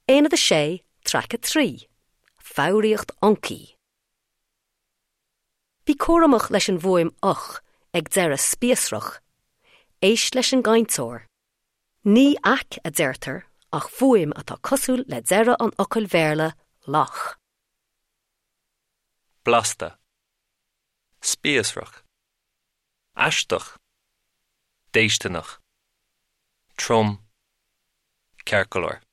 Aonad 6, Traic 3, Foghraíocht Fhoncaí. Bí cúramach leis an bhfuaim 'och' ag deireadh spíosrach. Éist leis an gcainteoir. Ní 'aic' a deirtear ach fuaim atá cosúil le deireadh an fhocail Bhéarla 'loch'. Blasta. Spíosrach. Aisteach. Déisteanach. Trom. Ceart go leor.